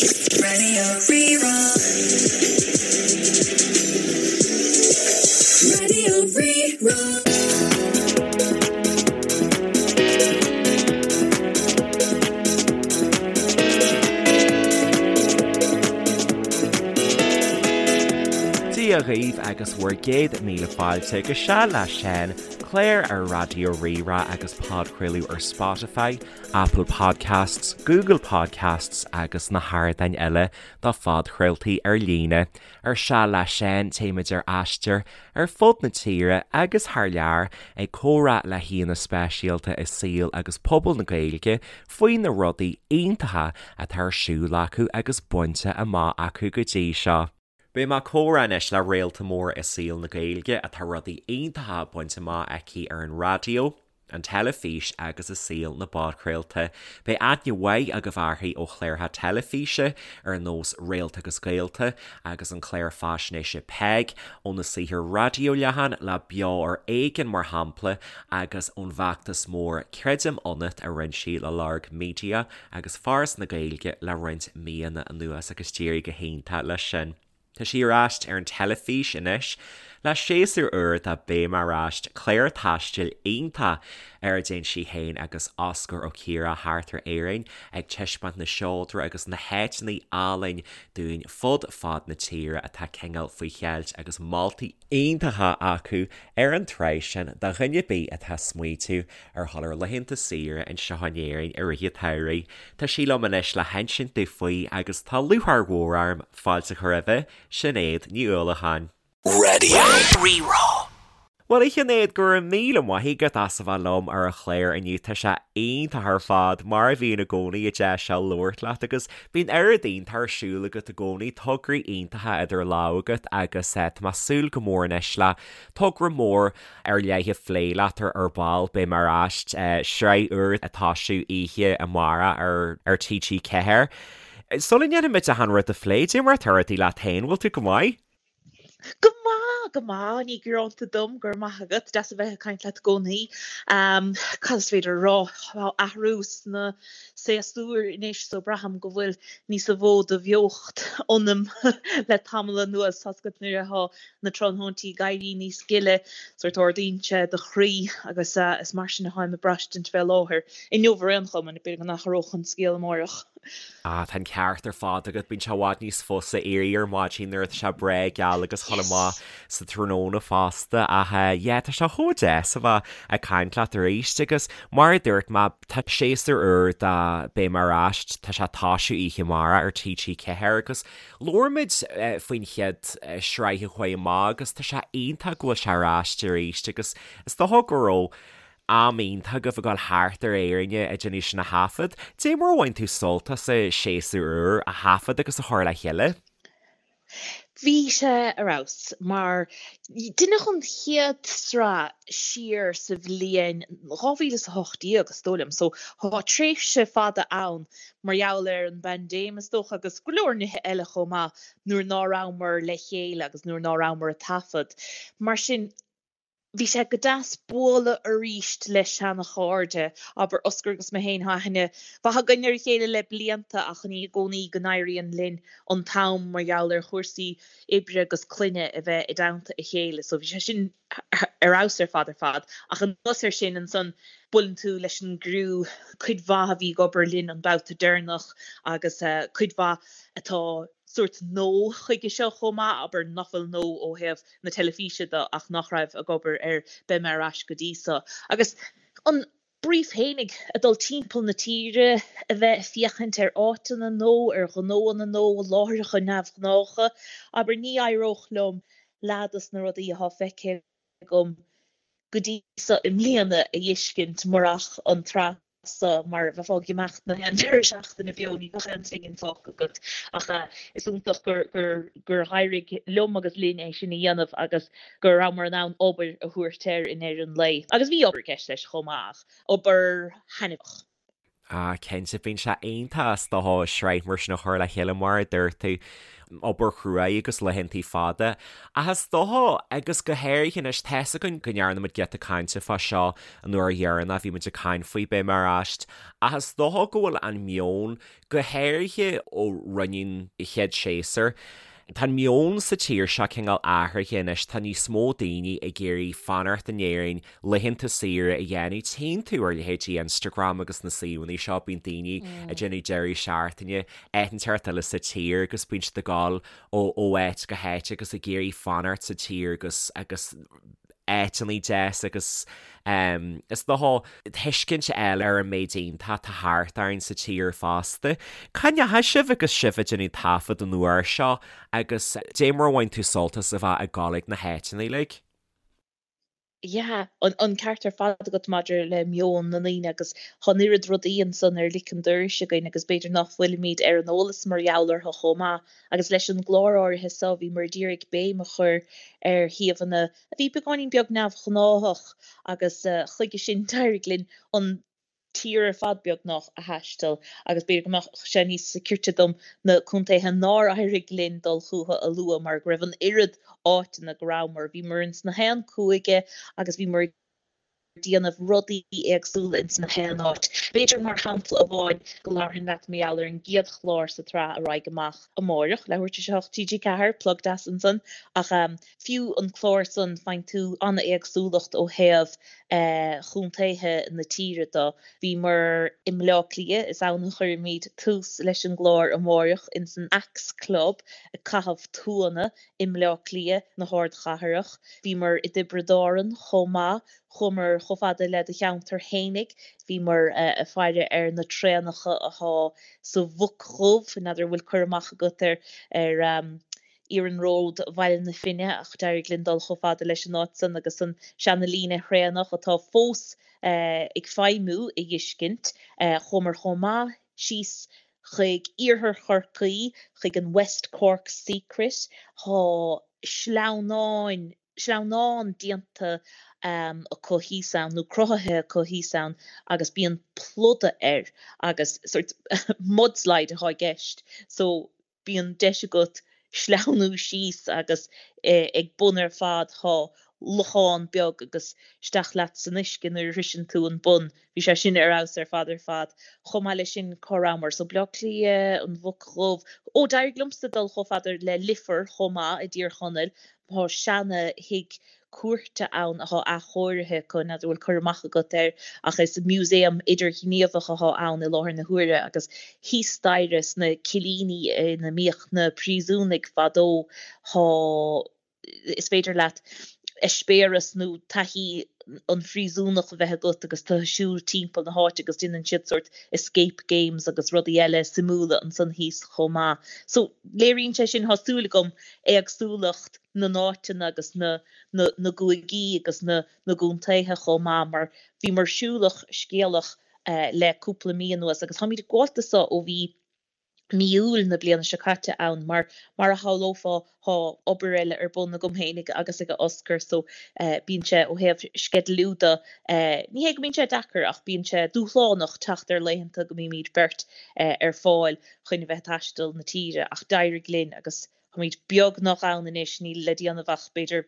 Raidió Rí-Rá. Raidió Rí-Rá. Dia dhaoibh agus bhur gcéad míle fáilte go Seal le Seán, clár ar Raidió Rí-Rá agus podchraoladh ar Spotify, Apple Podcasts, Google Podcasts agus na hardáin eile do phodchraoltaí ar líne. Ar Seal le Seán téimid ar aistear ar fud na tíre agus thar lear ag comhrá le haíonna speisialta i saol agus pobal na Gaeilge faoi na rudaí iontacha atá ar siúl acu agus bainte amach acu go dtí seo. Beidh mé ag comhrá anois le réalta mór i saol na Gaeilge atá rudaí iontacha bainte amach aici ar an raidió, an teilifís agus i saol na bpodchraolta. Beidh aithne mhaith agaibh uirthi ó chláracha teilifíse ar nós Réalta agus Gaolta agus an clár faisnéise Peig, óna saothar raidió leathan le Beo ar Éigean mar shampla agus ón bhfeachtas mór Creidim Ionat a rinne sí le Lorg Media agus Foras na Gaeilge le roinnt míonna anuas agus d'éirigh go hiontach leis sin. Tá sí ar ais ar an teilifís anois le séasúr úr de Beidh Mé Ar Ais, clár taistil iontach ar a dtéann sí féin agus Osgur Ó Ciardha thart ar Éirinn ag taispeáint na seodra agus na háiteanna álainn dúinn fud fad na tíre atá cineál faoi cheilt agus moltaí iontacha acu ar an tsraith sin do dhuine ar bith atá ag smaoitiú ar dhul ar laethanta saoire anseo in Éirinn i rith an tsamhraidh. Tá sí liom anois le hinsint domh faoi agus tá lúcháir mhór orm fáilte a chur roimhe, Sinéad Ní Uallacháin. Raidió Rí-Rá. Bhuel, a Shinéad, go raibh míle maith agat as a bheith liom ar an chlár inniu. Tá sé iontach ar fad, mar a bhíonn i gcónaí, an deis seo labhairt leat agus bíonn oiread iontach ar siúl agat i gcónaí, tograí iontacha idir lámha agat agus tá mé ag súil go mór anois le togra mór ar leith a phlé leat ar ar ball. Beidh mé ar ais, sraith úr ag tosú oíche amárach ar ar TG4. Sula ndéanfaimid achan rud a phlé, cad é mar atá rudaí leat féin, bhfuil tú go maith? Go maith, go maith, ní gearánta dom, go raibh maith agat, deas a bheith ag caint leat i gcónaí. Cad is féidir a rá, tá athrú sna séasúir anois so braithim go bhfuil níos mó de bheocht ionam le tamall anuas, tá's agat nuair atá na tráthnóintí ag éirí níos gile, sórt ardaíonn sé do chroí agus is mar sin atáim ag braistint fé láthair. Inniu ar aon chuma, b'fhéidir go n-athródh an scéal amáireach. Ah, tá an ceart ar fad agat, bíonn sé i bhfad níos fusa éirí ar maidin nuair atá sé breá geal agus dhul amach sa tráthnóna fosta ach yeah, tá sé chomh deas a bheith ag caint leat arís agus mar a dúirt mé, tá séasúr úr de Beidh Mé Ar Ais, tá sé ag tosú oíche amárach ar TG4 agus Labhair muid faoin chéad sraith a chuaigh amach agus tá sé iontach go bhfuil sé ar ais arís agus is dócha go raibh am iontach agaibh ag dul thart ar Éirinn ag déanamh sin a thaifead. Dé mar a bhain tú sult as an séasúr úr a thaifead agus a chur le chéile? Bhí sé ar fheabhas mar deineadh an chéad sraith siar sa bhliain 2018 is dóigh liom so tá tréimhse fada ann mar gheall ar an bpaindéim is dócha agus go leor nithe eile chomh maith nuair ná rabhamar le chéile agus nuair ná rabhamar ag taifead. Mar sin bhí sé go deas bualadh aríst le seana-chairde, abair Osgur agus mé féin, tá aithne mhaith againn ar a chéile le blianta ach ní i gcónaí go n-éiríonn linn an t-am mar gheall ar chúrsaí oibre agus clainne a bheith i dteannta a chéile so bhí sé sin ar fheabhas ar fad ar fad. Ach anuas air sin ansan buaileann tú leis an gcriú, cuid mhaith a bhí ag obair linn an babhta deireanach agus cuid mhaith atá sórt nua chuige seo chomh maith, abair nach bhfuil nua ó thaobh na teilifíse de ach nach raibh ag obair ar Beidh Mé Ar Ais go dtí so. Agus an brief fhéinig, ag dul timpeall na tíre, a bheith ag féachaint ar áiteanna nua, ar ghnóanna nua, láithreacha neamhghnácha, abair ní éireodh liom leath dos na rudaí atá feicthe agam go dtí so i mbliana a fheiscint murach an tsraith so, mar bheifeá ag imeacht na haon deireadh seachtaine beo, ní bheadh aon phingin fágtha agat. Ach is iontach gur gur éirigh liom agus linn é sin a dhéanamh agus go rabhamar in ann obair a thabhairt air i ndeireadh an lae. Agus bhí obair i gceist leis chomh maith, ach obair thaitneamhach. Ah, cinnte, bíonn sé iontach is dócha sraith mar sin a chur le chéile mar a dúirt tú. obair chruaidh agus laethantaí fada. Ach is dócha, agus go háirithe anois, tá's againn go ndearna muid giota cainte fá seo an uair dheireanach a bhí muid ag caint faoi Beidh Mé Ar Ais, ach is dócha go bhfuil an meon, go háirithe ó rinneadh an chéad séasúr, tá an meon sa tír seo cineál athraithe anois, tá níos mó daoine ag iarraidh fanacht in Éirinn, laethanta saoire a dhéanamh. Tchíonn tú ar leithéidí Instagram agus na suíomhanna seo, bíonn daoine ag déanamh deireadh seachtaine áit inteacht eile sa tír agus bíonn siad ag dul ó áit go háit agus ag iarraidh fanacht sa tír agus agus áiteanna deas agus is dócha tuiscint a fháil ar an méid iontach atá thart orainn sa tír fosta. Cá ndeachaigh sibh agus sibh ag déanamh taifead an uair seo agus dé mar a bhain tú sult as a bheith ag dul ag na háiteanna uilig? Yeah, an ceart ar fad agat maidir le meon na ndaoine agus tá an oiread rudaí ansan ar lic an dorais againn agus b'fhéidir nach bhfuilimid ar an eolas mar gheall orthu chomh maith. Agus leis an gclár áirithe seo bhíomar ag iarraidh béim a chur ar shuíomhanna a bhí beagáinín beag neamhghnáthach agus chuige sin d'éirigh linn an tír ar fad beagnach a thaisteal agus b'fhéidir go mbeadh sé níos cirte dom na contaetha nár éirigh linn dul chucu a lua mar go raibh an oiread áiteanna go rabhamar. Bhíomar ins na haon cúige agus bhíomar ag déanamh rudaí éagsúla ins na haon áit. B'fhéidir mar shampla amháin go labharfainn leat mar gheall ar an gcéad chlár sa tsraith a raghaidh amach amáireach, leathuair tar éis a 8 TG4, plug deas ansan, ach fiú an clár san faigheann tú an-éagsúlacht ó thaobh chontaetha na tíre de. Bhíomar i mBleá Cliath, is ann a chuirfimid tús leis an gclár amáireach, ins an Axe Club ag caitheamh tuanna i mBleá Cliath na hardchathrach. Bhíomar i dTiobraid Árann chomh maith, chuamar chomh fada le do cheantar fhéinig, bhíomar ag faire ar na traenacha athá sa Mhuc Dhubh, n'fheadar an bhfuil cur amach agat ar ar Iarnród Bhaile na Finne ach d'éirigh linn dul chomh fada leis an áit san agus an seana-líne thraenach atá fós ag feidhmiú a dh'fheiscint. Chuamar chomh maith síos chuig iarthar Chorcaí, chuig an West Cork Secret. Tá sleamhnáin, sleamhnán déanta acu thíos ann, nó cruthaithe acu thíos ann agus bíonn pluda air agus sort mudslide atá i gceist so bíonn deis agat sleamhnú síos agus ag bun ar fad tá lochán beag agus isteach leat san uisce nuair a shroiseann tú an bun. Bhí sé sin ar fheabhas ar fad ar fad. Chomh maith leis sin cá rabhamar? So Bleá Cliath, an Mhuc Dhubh. Ó d'éirigh liomsa dul chomh fada le Leifear chomh maith i dTír Chonaill. Tá seana thigh cúirte ann athá athchóirithe acu, n'fheadar an bhfuil cur amach agat air, ach is músaem idirghníomhach athá ann i láthair na huaire agus thíos staighre sna cillíní ina mbíodh na príosúnaigh fadó thá, is féidir leat eispéireas nó taithí an phríosúnach a bheith agat agus tú ag siúl timpeall na háite agus déanann siad sórt escape games agus rudaí eile suimiúla ansan thíos chomh maith. So léiríonn sé sin, thá súil agam, éagsúlacht na n-áiteanna agus na na gcúigí agus na na gcontaetha chomh maith mar bhíomar siúlach scéalach le cúpla mí anuas agus táimid ag gabháilt do so ó bhí mí Iúil na bliana seo caite ann mar mar a shamhlófá thá obair eile ar bun agam fhéinig agus ag Oscar so bíonn sé ó thaobh sceidealú de ní hé go mbíonn sé deacair ach bíonn sé dúshlánach teacht ar laethanta go mbímid beirt ar fáil chun a bheith ag taisteal na tíre ach d'éirigh linn agus Táimid beagnach ann anois, níl le déanamh ach b'fhéidir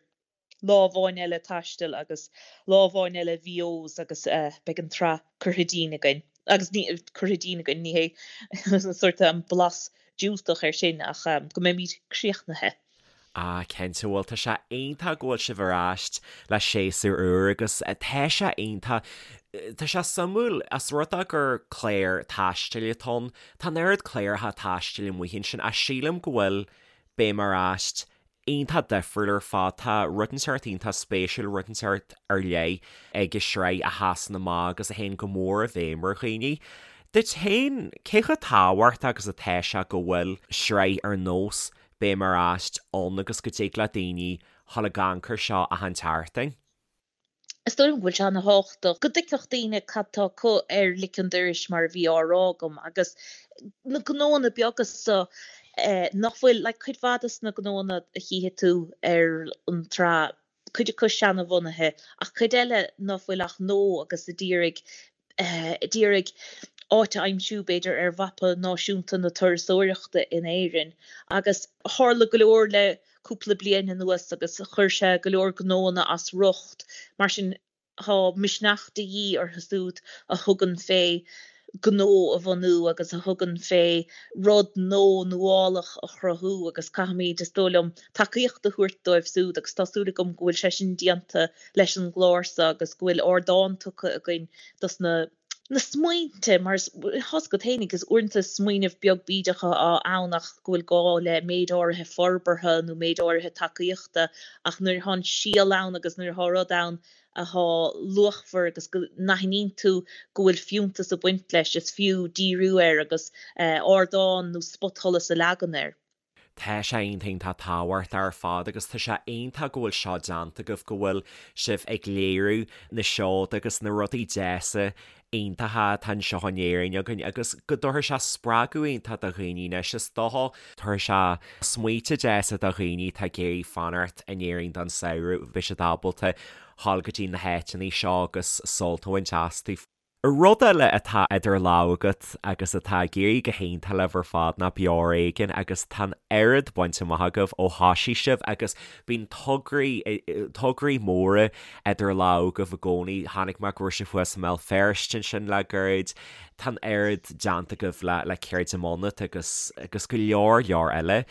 lá amháin eile taistil agus lá amháin eile VOs agus beidh an tsraith curtha dínn againn. Agus ní, curtha dínn againn, ní hé sórt an blas diúltach air sin ach go mbeimid críochnaithe. Ah cinnte, bhuel tá sé iontach go bhfuil sibh ar ais le séasúr úr agus tá sé iontach, tá sé suimiúil, as rud é gur clár taistil atá ann, Tá an oiread cláracha taistil amuigh ansin ach sílim go bhfuil Beidh Mé Ar Ais iontach difriúil ar fad. Tá rud inteacht iontach spéisiúil, rud inteacht ar leith ag an sraith a sheasann amach agus a théann go mór i bhfeidhm ar dhaoine. Duit féin, cé chomh tábhachtach agus atá sé go bhfuil sraith ar nós Beidh Mé Ar Ais ann agus go dtig le daoine dhul ag amharc air seo achan tseachtain? Is dóigh liom go bhfuil sé ana-thábhachtach go dtuigfeadh daoine cad tá acu ar lic an dorais mar a bhí á rá agam agus na gnóanna beaga so nach bhfuil, like cuid mhaith dos na gnóanna a chífidh tú ar an tsraith, cuid acu seana-bhunaithe ach cuid eile ná fuil ach gnó agus a d'iarraidh, a d'iarraidh. áit a aimsiú, b'fhéidir, ar mhapa náisiúnta na turasóireachta in Éirinn. Agus tharla go leor le cúpla bliain anuas agus chuir sé go leor gnóanna as riocht. Mar sin, tá misneach de dhíth orthu siúd a thugann fé gnó a bhunú agus a thugann fé rud nó nuálach a chruthú agus caithfimid, is dóigh liom, tacaíocht a thabhairt dóibh siúd agus tá súil agam go bhfuil sé sin déanta leis an gclár seo agus go bhfuil ardán tugtha againn dos na na smaointe, mar tá's agat fhéinig, is uaireanta smaoineamh beag bídeach atá ann ach go bhfuil gá le méid áirithe forbartha nó méid áirithe tacaíochta ach nuair atá an síol ann agus nuair atá rud ann atá luachmhar agus go n-aithníonn tú go bhfuil fiúntas ag baint leis, is fiú díriú air agus ardán nó spotsholas a leagan air. Tá sé iontach iontach tábhachtach ar fad agus tá sé iontach go bhfuil seo déanta agaibh, go bhfuil sibh ag léiriú na seoda agus na rudaí deasa iontacha atá anseo in Éirinn againn agus go dtabharfaidh sé spreagadh iontach do dhaoine anois is dócha. Tabharfaidh sé smaointe deasa do dhaoine atá ag iarraidh fanacht in Éirinn don samhradh, beidh siad ábalta dhul go dtí na háiteanna seo agus sult a bhaint astu. Rud eile atá idir lámha agat agus atá ag éirí go hiontach libh ar fad ná Beo Ar Éigean agus tá an oiread bainte amach agaibh ó thoisigh sibh agus bíonn tograí, tograí móra idir lámha agaibh i gcónaí. Chonaic mé go raibh sibh thuas i mBéal Feirste ansin le gairid. Tá an oiread déanta agaibh le, le Creidim Ionat agus, agus go leor, leor eile.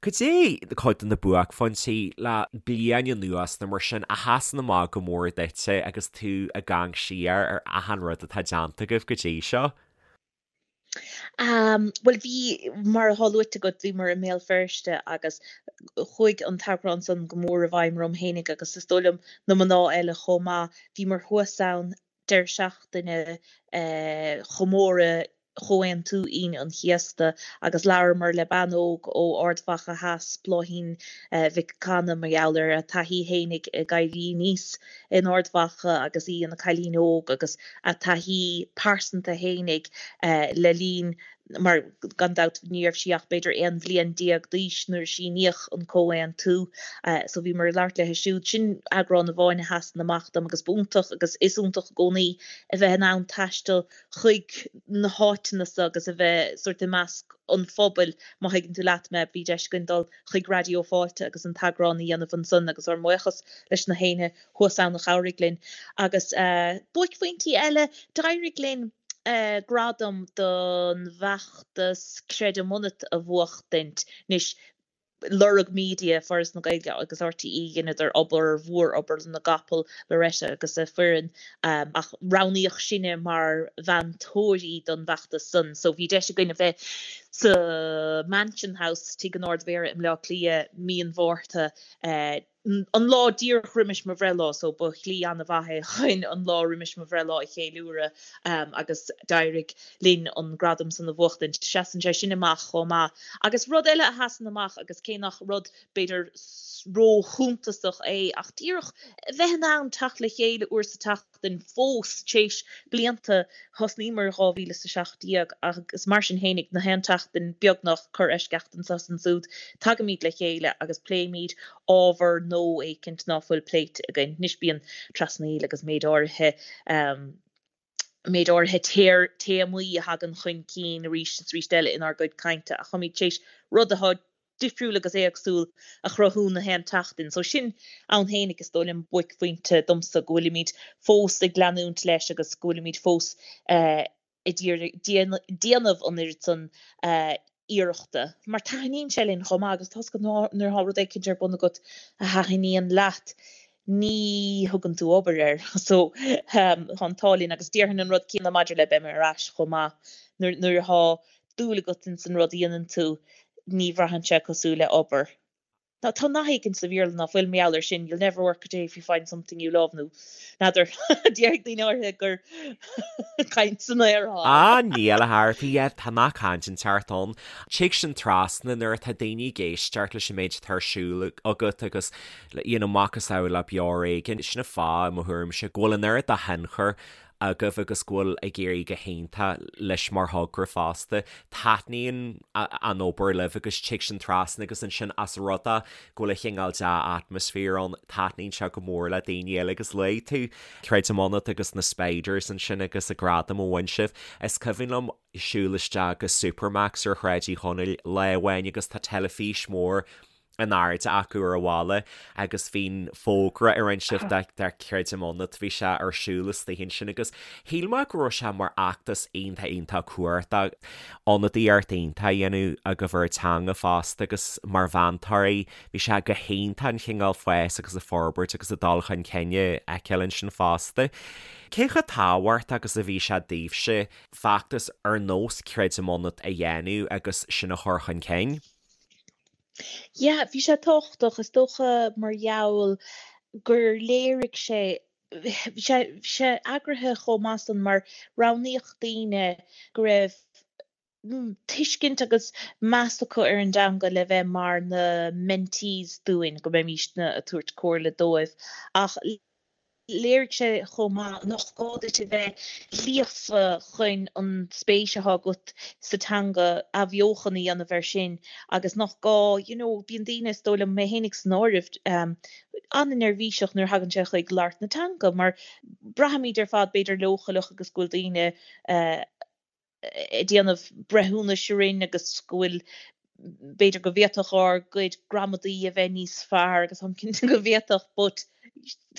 Cad é cuid de na buaicphointí le bliain anuas nó mar sin a sheasann amach go mór duitse agus tú ag amharc siar ar achan rud atá déanta agaibh go dtí seo? Bhuel bhí, mar atá luaite agat, bhíomar i mBéal Feirste agus chuaigh an t-eagrán san go mór i bhfeidhm orm fhéinig agus is dóigh liom na mná eile chomh maith. Bhíomar thuas ann deireadh seachtaine chomóradh Chomhaontú Aoine an Chéasta agus labhramar le bean óg ó Ard Mhacha Theas, Bláithín Mhic Cana, mar gheall ar a taithí fhéinig ag éirí aníos in Ard Mhacha agus í ina cailín óg agus a taithí pearsanta fhéinig le linn mar gan dabht ní raibh sí ach b'fhéidir 11 bhliain d'aois nuair a síníodh an Comhaontú. So bhíomar ag labhairt léi siúd. Sin eagrán amháin a sheasann amach dom agus b'iontach agus is iontach i gcónaí a bheith in ann taisteal chuig na háiteanna so agus a bheith sórt i measc an phobail, má thuigeann tú leat mé. Bhí deis againn dul chuig Raidió Fáilte agus an t-eagrán a dhéanamh ansan agus ár mbuíochas leis na héinne thuas ann a chabhraigh linn. Agus buaicphointí eile, d'éirigh linn gradam don bhfeachtas Creidim Ionat a bhuachtaint. Anois, Lorg Media, Foras na Gaeilge agus RTÉ, dheineadar obair mhór, obair na gcapall, Loretta agus a foireann, ach roghnaíodh sinne mar mheantóirí don bhfeachtas san. So bhí deis againn a bheith sa Mansion House, Tigh an Ard-Mhéara i mBleá Cliath, mí an Mhárta, an lá díreach roimis mo bhreithlá, so ba shlí an-mhaith é chun an lá roimis mo bhreithlá a cheiliúradh agus d'éirigh linn an gradam san a bhuachtaint. Seasann sé sin amach chomh maith. Agus rud eile a sheasann amach, agus cé nach rud b'fhéidir ró-shuntasach é, ach díreach a bheith in ann teacht le chéile uair sa tseachtain fós, téis blianta, thosnaíomar in 2017 agus mar sin fhéinig, na haon tseachtain, beagnach, corr-eisceacht anso is ansúd, tagaimid le chéile agus pléimid ábhar nó éicint ná fuil pléite againn. Anois bíonn trasnaíl agus méid áirithe, méid áirithe téamaí a thagann chun cinn arís is arís eile inár gcuid cainte ach táimid tar éis rud atá difriúil agus éagsúil a chruthú na haon tseachtain. So sin ann fhéinig is dóigh liom buaicphointe domsa go bhfuilimid fós ag leanúint leis agus go bhfuilimid fós ag déanamh an oiread san iarrachta mar taithníonn sé linn chomh maith agus tá's agat nuair atá rud éicint ar bun agat a thaithníonn leat ní thugann tú obair air so tá an t-ádh linn agus déarfainn an rud céanna maidir le beidh mé ar ais chomh maith nuair nuair atá dúil agat ins an rud a dhéanann tú ní bhraitheann sé cosúil le obair. Tá nath éicint sa Bhéarla ná fuil mar gheall air sin, you'll never work a day if you find something you love, nó n'fheadar, déarfaidh daoine áirithe gur caint san aer atá ann. Ah, níl a Thairfí, yeah, tá nath cainte inteacht ann. Tig sin trasna nuair atá daoine ag éisteacht leis an méid atá ar siúl agat agus, you know, macasamhail le Beo Ar Éigean. Sin an fáth, i mo thuairimse, go bhfuil an oiread de thionchar. agaibh agus go bhfuil ag éirí go hiontach leis mar thogra fosta. Taitníonn an obair libh agus tig sin trasna agus ansin as rud é go bhfuil a chineál dea-atmaisféar ann, taitníonn sé go mór le daoine eile agus luaigh tú Creidim Ionat agus na Spiders ansin agus an gradam a bhain sibh. Is cuimhin liom siúl isteach go Supermacs ar Shráid Uí Chonaill lá amháin agus tá teilifís mhór in airde acu ar an bhalla agus bhí an fógra a rinne sibh do Creidim Ionat, bhí sé ar siúl istigh ansin agus shíl mé go raibh sé mar fheachtas iontach iontach cumhachtach, ionadaíocht iontach a dhéanamh agaibh ar an teanga fosta agus mar mheantóirí bhí sé go hiontach an chineál fás agus an forbairt agus an dul chun cinn a fheiceáil ansin fosta. Cé chomh tábhachtach agus a bhí sé daoibhse feachtas ar nós Creidim Ionat a dhéanamh agus sin a chur chun cinn? Yeah, bhí sé tábhachtach, is dócha mar gheall gur léirigh sé, bhí sé, bhí sé eagraithe chomh maith san mar roghnaíodh daoine go raibh tuiscint agus meas acu ar an dteanga le bheith mar na mentees dúinn, go mbeimísne ag tabhairt comhairle dóibh. Ach Léirigh sé chomh maith nach gá duit a bheith líofa chun an spéis atá agat sa teanga athbheochan a dhéanamh air sin agus nach gá, you know, bíonn daoine, is dóigh liom, mé fhéinig san áireamh, an-neirbhíseach nuair a thagann sé chuig labhairt na teanga mar braithimid ar fad b'fhéidir leochaileach agus go bhfuil daoine ag déanamh breithiúnais orainn agus go bhfuil, b'fhéidir go bhféadfadh ár gcuid gramadaí a bheith níos fearr agus táim cinnte go bhféadfadh but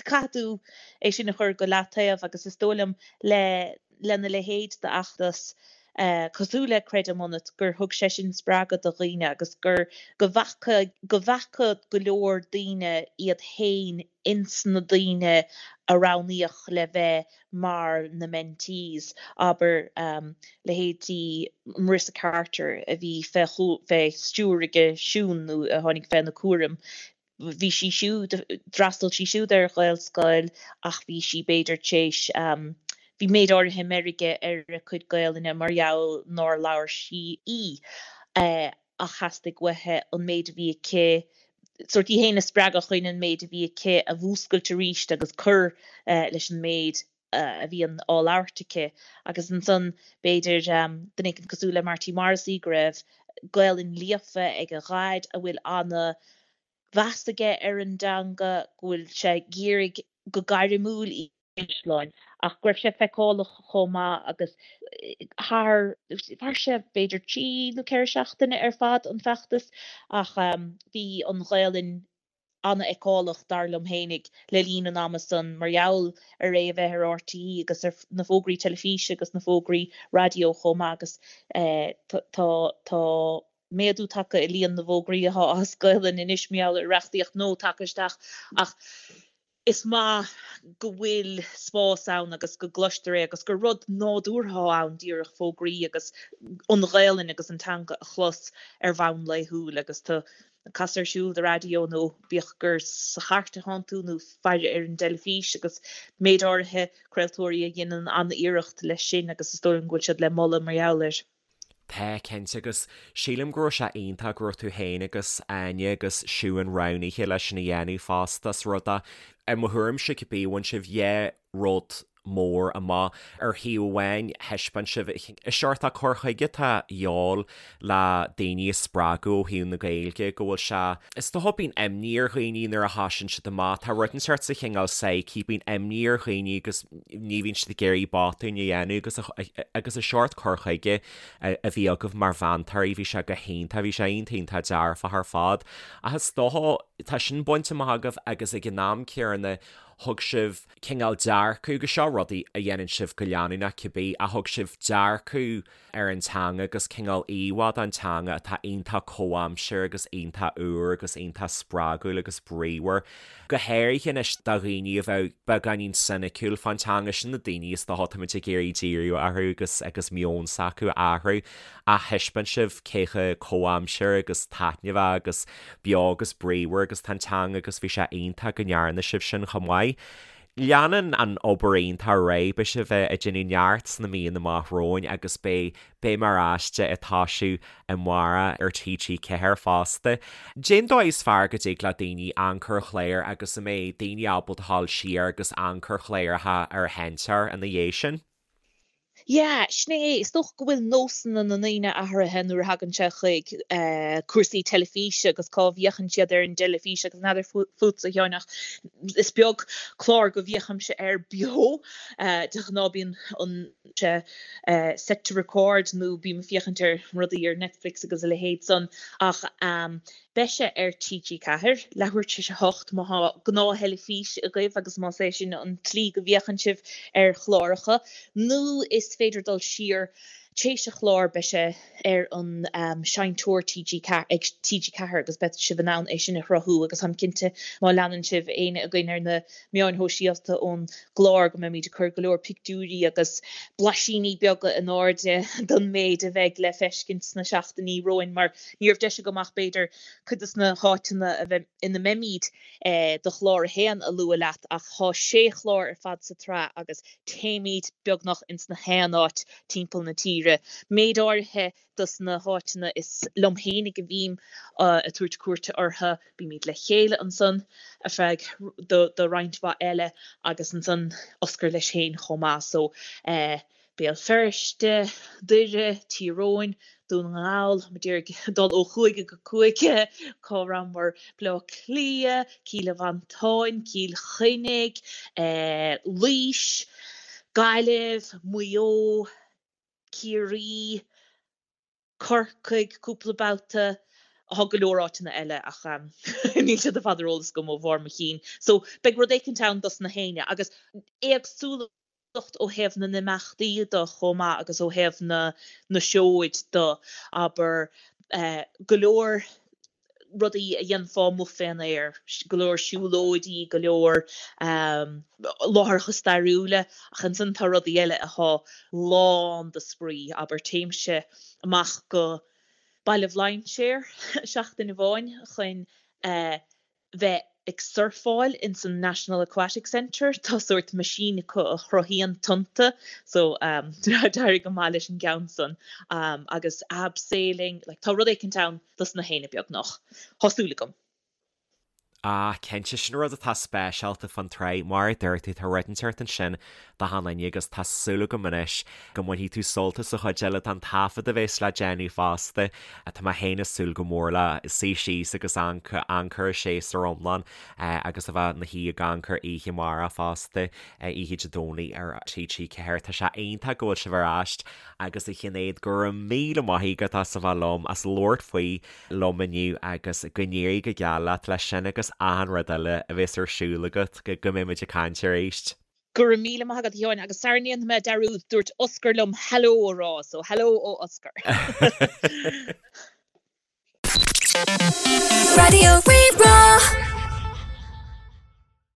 caithfidh tú é sin a chur go leataobh agus is dóigh liom le lena leithéid d'fheachtas cosúil le Creidim Ionat gur thug sé sin spreagadh do dhaoine agus gur go bhfaca go bhfaca go leor daoine iad féin ins na daoine a roghnaíodh le bheith mar na mentees, abair, leithéidí Marissa Carter a bhí fé stiúir aige Siún nó a tháinig féna cúram, bhí sí siúd, d'fhreastail sí siúd ar Ghaelscoil ach bhí sí b'fhéidir tar éis, bhí méid áirithe meirge ar a cuid Gaelainne mar gheall nár labhair sí í. Ach theastaigh uaithi an méid a bhí aici, sórt í féin a spreagadh chun an méid a bhí aici a mhúscailt arís agus cur leis an méid a bhíonn á labhairt aici. Agus ansan, b'fhéidir, duine éicint cosúil le Marty Morrissey, go raibh Gaelainn líofa ag a dhaid, a bhfuil ana mheas aige ar an dteanga, go bhfuil sé ag iarraidh go gairmiúil í Caisleáin, ach go raibh sé feiceálach chomh maith agus thar, mhair sé b'fhéidir 3 nó 4 seachtaine ar fad an feachtas ach bhí an Ghaelainn an-fheiceálach dar liom fhéinig le linn an ama san mar gheall ar é a bheith ar RTÉ agus ar na fógraí teilifíse agus na fógraí raidió chomh maith agus tá, tá méadú tagtha i líon na bhfógraí atá as Gaelainn anois mar gheall ar reachtaíocht nua tagtha isteach ach is maith go bhfuil spás ann agus go gcloistear é agus gur rud nádúrtha atá ann díreach fógraí agus an Ghaelainn agus an teanga a chlos ar bhonn laethúil agus tú ag casadh ar siúl do raidió nó bíodh gur sa chairt atánn tú nó faire ar an dteilifís agus méid áirithe craoltóirí a dhéanann an-iarracht leis sin agus is dóigh liom go bhfuil siad le moladh mar gheall air. Tá, cinnte, agus sílim go raibh sé iontach go raibh tú féin agus Áine agus Siún roghnaithe leis sin a dhéanamh fosta, is rud é, i mo thuairimse cibé, bhain sibh dhá rud mór amach. Ar thaobh amháin, thaispeáin sibh an seort cur chuige atá de dhíobháil le daoine a spreagadh ó thaobh na Gaeilge, go bhfuil sé, is dócha, bíonn imní ar dhaoine nuair a thosaíonn siad amach, tá rud inteacht sa chineál psyche, bíonn imní ar dhaoine agus ní bhíonn siad ag iarraidh botúin a dhéanamh agus agus an seort cur chuige a bhí agaibh mar mheantóirí, bhí sé go hiontach, bhí sé iontach iontach dearfach ar fad. Ach is dócha, tá sin bainte amach agaibh agus ag an am céanna thug sibh cineál dearcadh, agus seo rudaí a dhéanann sibh go leanúnach cibé, ach thug sibh dearcadh ar an teanga agus cineál íomhá den teanga atá iontach comhaimseartha agus iontach úr agus iontach spreagúil agus bríomhar. Go háirithe anois do dhaoine a bheadh beagáinín soiniciúil fán teanga, sin na daoine is dócha táimid ag iarraidh díriú orthu agus agus meon s'acu a athrú ach thaispeáin sibh cé chomh comhaimseartha agus taitneamhach agus beo agus bríomhar agus tá an teanga agus bhí sé iontach go ndearna sibh sin chomh maith. Leanann an obair iontach ar aghaidh, beidh sibh ag déanamh neart sna míonna amach romhainn agus beidh Béim ar Aiste ag toisiú amárach ar TG4 fosta. Cén dóigh is fearr go dtig le daoine amharc ar chláir agus an mbeidh daoine ábalta dhul siar agus amharc ar chláracha ar an seinnteoir ina dhiaidh sin? Yeah, sin é. Is dócha go bhfuil nósanna na ndaoine athraithe nuair a thagann sé chuig cúrsaí teilifíse agus cá bhféachann siad ar an dteilifís agus n'fheadar fútsa, a Sheáin, ach is beag clár go bhféachaimse air beo. De ghnáth bíonn an sé set to record nó bím ag féachaint ar rudaí ar Netflix agus a leithéid san ach Beidh sé ar TG4, leathuair tar éis a hocht, má tá gnáth-theilifís agaibh agus más é sin an tslí go bhféachann sibh ar chláracha, nó is féidir dul siar tar éis an chláir, beidh sé ar an seinnteoir TG4, ag TG4 agus beidh sibh in ann é sin a shruthú agus táim cinnte má leanann sibh éinne againn ar na meáin shóisialta ón gclár go mbeimid ag cur go leor pictiúirí agus blaisíní beaga in airde don méid a bheidh le feiscint sna seachtainí romhainn mar ní raibh deis agam ach b'fhéidir cuid de na háiteanna a bheidh ina mbeimid do chlár a haon a lua leat ach tá sé chlár ar fad sa tsraith agus téimid beagnach ins na haon áit timpeall na tíre. Méid áirithe dos na háiteanna is liom fhéinig a bhím ag tabhairt cuairte orthu. Bímid le chéile ansan ar feadh do roinnt mhaith eile agus ansan Oscar leis féin chomh maith. So eh Béal Feirste, Doire, Tír Eoghain, Dún na nGall, muid ag dul ó chúige go cúige, cá rabhamar, Baile Átha Cliath, Cill Mhantáin, Cill Chainnigh, eh Laois, Gaillimh, Maigh Eo, Ciarraí, Corcaigh cúpla babhta, tá go leor áiteanna eile ach níl siad ar fad ar eolas agam ó bharr mo chinn. So beidh rud éicint ann dos na héinne agus éagsúlacht ó thaobh na n-imeachtaí de chomh maith agus ó thaobh na na seoid de, abair, go leor rudaí a dhéanfá amuigh fén aer, go leor siúlóidí, go leor láithreacha stairiúla, ach ansan tá rudaí eile athá lán de spraoi, abair téimse amach go Baile Bhlainséir seachtain amháin chun bheith ag surfáil ins an National Aquatic Centre, tá sórt machine acu a chruthaíonn tonnta so d'éirigh go maith leis an gceann san agus abseiling, like tá rud éicint ann dos na héinne beagnach, tá súil agam. Ah, cinnte, sin rud atá speisialta fán tsraith, mar a dúirt tú, tá rud inteacht ansin do achan duine agus tá súil agam anois go mbainfidh tú sult as an chuid eile den taifead a bheas le déanamh fosta. Tá mé féin ag súil go mór le suí síos agus amharc ar an séasúr iomlán agus a bheith ina shuí ag amharc air oíche amárach fosta, oíche Dé Domhnaigh ar TG4. Tá sé iontach go bhfuil sibh ar ais agus a Shinéad, go raibh míle maith agat as a bheith liom, as labhairt faoi liom inniu agus go n-éirí go geal leat leis sin agus achan rud eile a bheas ar siúl agat, go mbeidh muid ag caint arís. Go raibh míle maith agat a Sheáin agus sara ndéanfaidh mé dearúd, dúirt Oscar liom hello a rá, so hello ó Oscar. Raidió Rí-Rá.